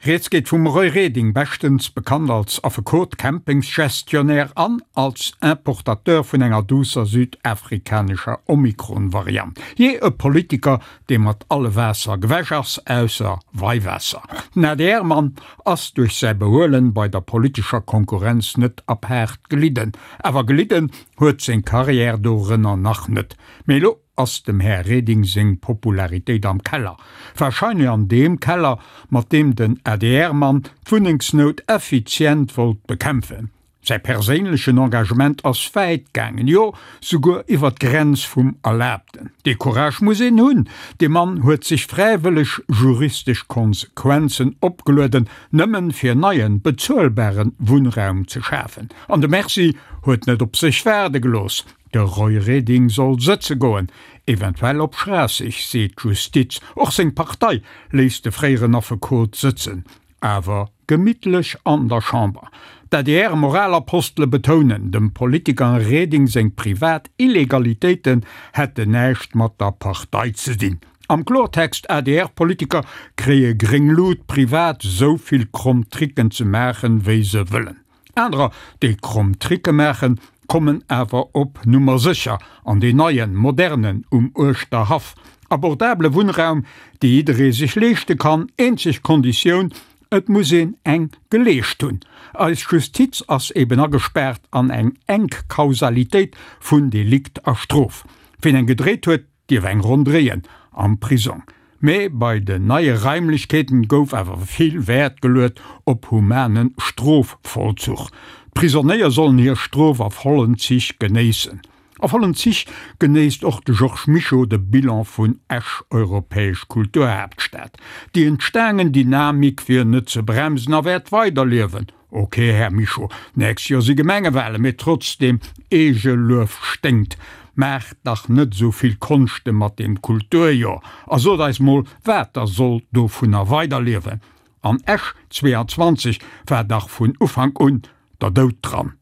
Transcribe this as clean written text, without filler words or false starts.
Rieds geet vum Roy Reding, beschtens bekannt als Affekot, Campingsgestionnaire an als Importateur vun enger duusser südafrikanescher Omikron-Variant. Jee, e Politiker, dee mat alle Waasser gewäsch ass, ausser Weiwaasser. Den ADR-Mann ass duerch säi Behuelen bei der politescher Konkurrenz net apaart gelidden. Awer gelidden huet seng Karriär dorënner nach net. Mee elo ass dem Här Reding seng Popularitéit am Keller. Wahrscheinlech an deem Keller, mat deem den ADR-Mann d'Wunnengsnout effizient wollt bekämpfen. Säi perséinlechen Engagement ass wäit gaangen, jo souguer iwwer d'Grenz vum Erlaabten. Dee Courage muss een hunn! Dee Mann huet sech fräiwëlleg juristesch Konsequenzen opgelueden, nëmmen fir neien, bezuelbaren Wunnraum ze schafen. An de Merci huet net op sech waarde gelooss. De Roy Reding soll sëtze goen, eventuell op Schraasseg, seet d'Justiz. Och seng Partei léisst de fréieren Affekot sëtzen, awer gemittlech an der Chamber. D'ADR-Moralapostele betounen, dem Politiker Reding seng privat Illegalitéiten hätten näischt mat der Partei ze dinn. Am Klortext, ADR-Politiker kréie gréng Lut, privat esou vill kromm Tricken ze maachen, wéi se wëllen. Anerer, déi kromm Tricke maachen, kommen awer op Nummer sécher an deen neien, modernen um Uerschterhaff. Abordabele Wunnraum, dee jidderee sech leeschte kann, eenzeg Konditioun, et muss een eng geleescht hunn. Eis Justiz ass eben agespaart an eng enk Kausalitéit vun Delikt a Strof. Ween eng gedréit huet, dierf eng Ronn dréien am Prisong. Mee bei den neie Raimlechkeeten gouf awer vill Wäert geluet op humane Strofvollzuch. D'Prisonéier sollen hir Strof a vollen Zich genéissen. A vollen Zich genéisst och de Georges Mischo de Bilan vun Esch, Europäesch Kulturhaaptstad. Déi entstaangen Dynamik wier net ze bremsen a wäert weiderliewen. Ok, Här Mischo, nächst Joer si Gemengewahlen, mee trotzdem, Eegeluef sténkt. Maacht dach net esou vill Konschte mat deem Kulturjoer a sot eis mol, wat da soll dovunner weiderliewen. An Esch 22 war dach vun Ufank un der Doud dran.